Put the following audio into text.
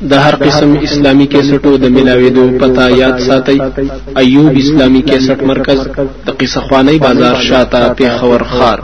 د هر قسم اسلامی کیسټو د ملاويدو پتا یاد ساتي. ایوب اسلامی کیسټ مرکز د قصه خوانی بازار شاته پیښور خار.